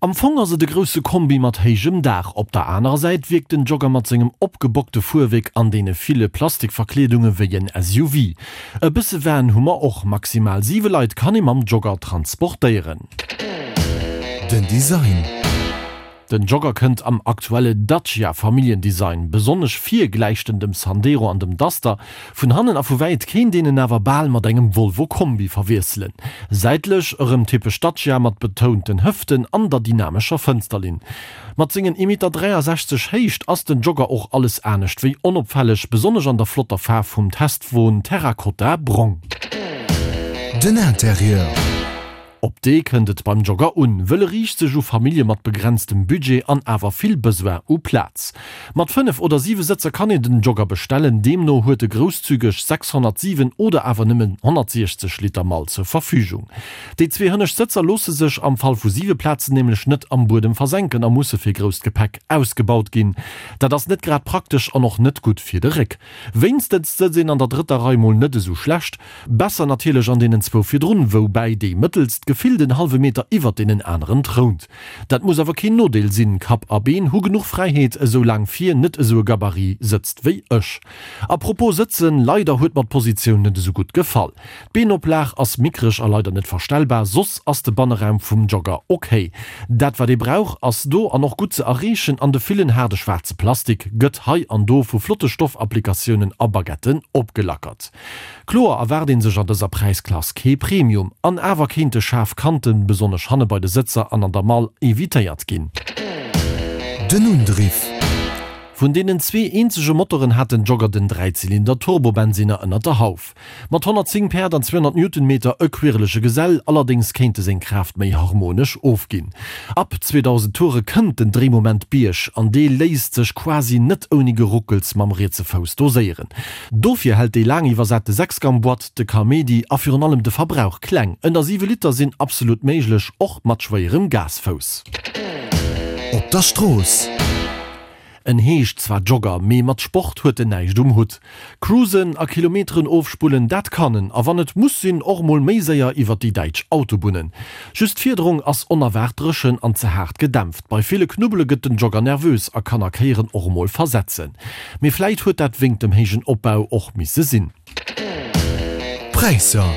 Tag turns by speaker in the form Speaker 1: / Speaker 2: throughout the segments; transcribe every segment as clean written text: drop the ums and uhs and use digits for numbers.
Speaker 1: Am Fong ass et e grousse Kombi mat héijem Daach. Op der anerer Säit wierkt den Jogger mat sengem opgebockte Fuerwéck an deene ville Plastikverkleedunge wéi en SUV. E bësse Van hu mer och, maximal 7 Leit kann ee mam Jogger transportéieren.
Speaker 2: Den Design.
Speaker 1: Den Jogger kënnt am aktuelle Dacia Familljendesign. Besonnesch vir gläicht en dem Sandero an dem Duster. Vun hannen a vu wäit kéint een en awer bal mat engem Volvo Kombi verwiesselen. Säitlech erëm typesch Dacia mat betounten Hëften an der dynamescher Fënsterlinn. Mat sengen 1,63 Meter Héicht ass den Jogger och alles anescht wéi onopfälleg, besonnesch an der flotter Faarf vum Testwon Terracotta Brong.
Speaker 2: Den Interieur.
Speaker 1: Op dee kënnt et beim Jogger un, wëll e riicht sech u Famillje mat begrenztem Budget an awer vill Besoin u Plaz. Mat 5 oder 7 Sëtzer kann een den Jogger bestellen, deemno huet e grousszügeg 607 oder awer nëmmen 160 Liter Mall zur Verfügung. Déi zwee hënnescht Sëtzer loosse sech am Fall vu 7 Plazen nämlech net am Buedem versenken a musse fir grousst Gepäck ausgebaut ginn. Dat ass net grad praktesch an och net gutt fir de Réck. Wéinstens sëtzt een an der drëtter Rei mol net esou schlecht. Besser natierlech an deenen zwou virdrun, woubäi déi mëttelst gefillt en hallwe Meter iwwert deenen aneren trount. Dat muss awer keen Nodeel sinn, Kapp a Been hu genuch Fräiheet, esou laang vir net esou e Gabarit sëtzt wéi ech. A propos sëtzen, leider huet mer d'Positioun net esou gutt gefall. D'Beenoplag ass mickreg a leider net verstellbar, soss ass de Banneraum vum Jogger ok. Dat wat ee brauch ass do an och gutt ze erreechen an de villen haarde schwaarze Plastik gëtt hei an do vu flotte Stoffapplikatiounen a Baguetten opgelackert. Kloer erwaart een sech an dëser Präisklass kee Premium, an awer kéinte schaarf Kanten, besonnesch hanne bei de Sëtzer an an der Mall, evitéiert ginn.
Speaker 2: Den Undriff.
Speaker 1: Vun deenen zwee eenzege Motoren hat den Jogger den Dräizylinder-Turbobensinner ënnert der Hauf. Mat 110 Päerd an 200 Newtonmeter e quirlege Gesell, allerdéngs kéint e seng Kraaft méi harmonesch ofginn. Ab 2000 Toure kënnt den Dréimoment Bierg, an dee léisst sech quasi net ouni Geruckels mam rietse Fouss doséieren. Dofir hält déi laang iwwersate Sechsgang-Boîte de Kaméidi a virun allem de Verbrauch kleng. Ënner 7 Liter sinn absolut méiglech, och mat schwéierem Gasfouss.
Speaker 2: Op der Strooss.
Speaker 1: En heescht zwar Jogger, mee mat Sport huet en näischt um Hutt. Cruisen a Kilometeren ofspullen, dat kann en, a wann et muss sinn, och mol méi séier iwwer déi däitsch Autobunnen. Just d'Fiederung ass onerwaart dréchen an ze haart gedämpft. Bei ville Knubbele gëtt den Jogger nervös a kann a Kéieren och emol versetzen. Mee vläit huet dat wéngt dem héijen Opbau och misse sinn.
Speaker 2: D'Präisser.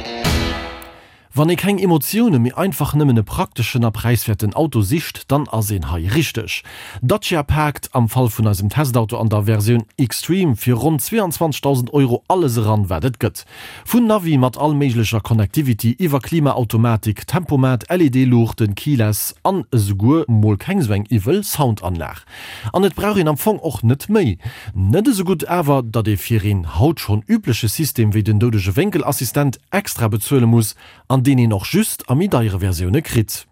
Speaker 1: Wann ee keng Emotioune mee einfach nëmmen e prakteschen a präiswäerten Auto sicht, dann ass een hei richteg. Dacia paakt am Fall vun eisem Testauto an der Versioun Xtreme fir ronn 22.000 Euro alles eran, wat et gëtt. Vun Navi mat all méiglecher Connectivity iwwer Klimaautomatik, Tempomat, LED-Luuchten, Keyless an esouguer mol keng sou eng iwwel Soundanlag. An et brauch een am Fong och net méi. Net esou gutt awer, datt ee fir een haut schonn übleche System wéi den doudege Wénkel-Assistent extra bezuele muss an deen een och just a méi deiere Versioune kritt.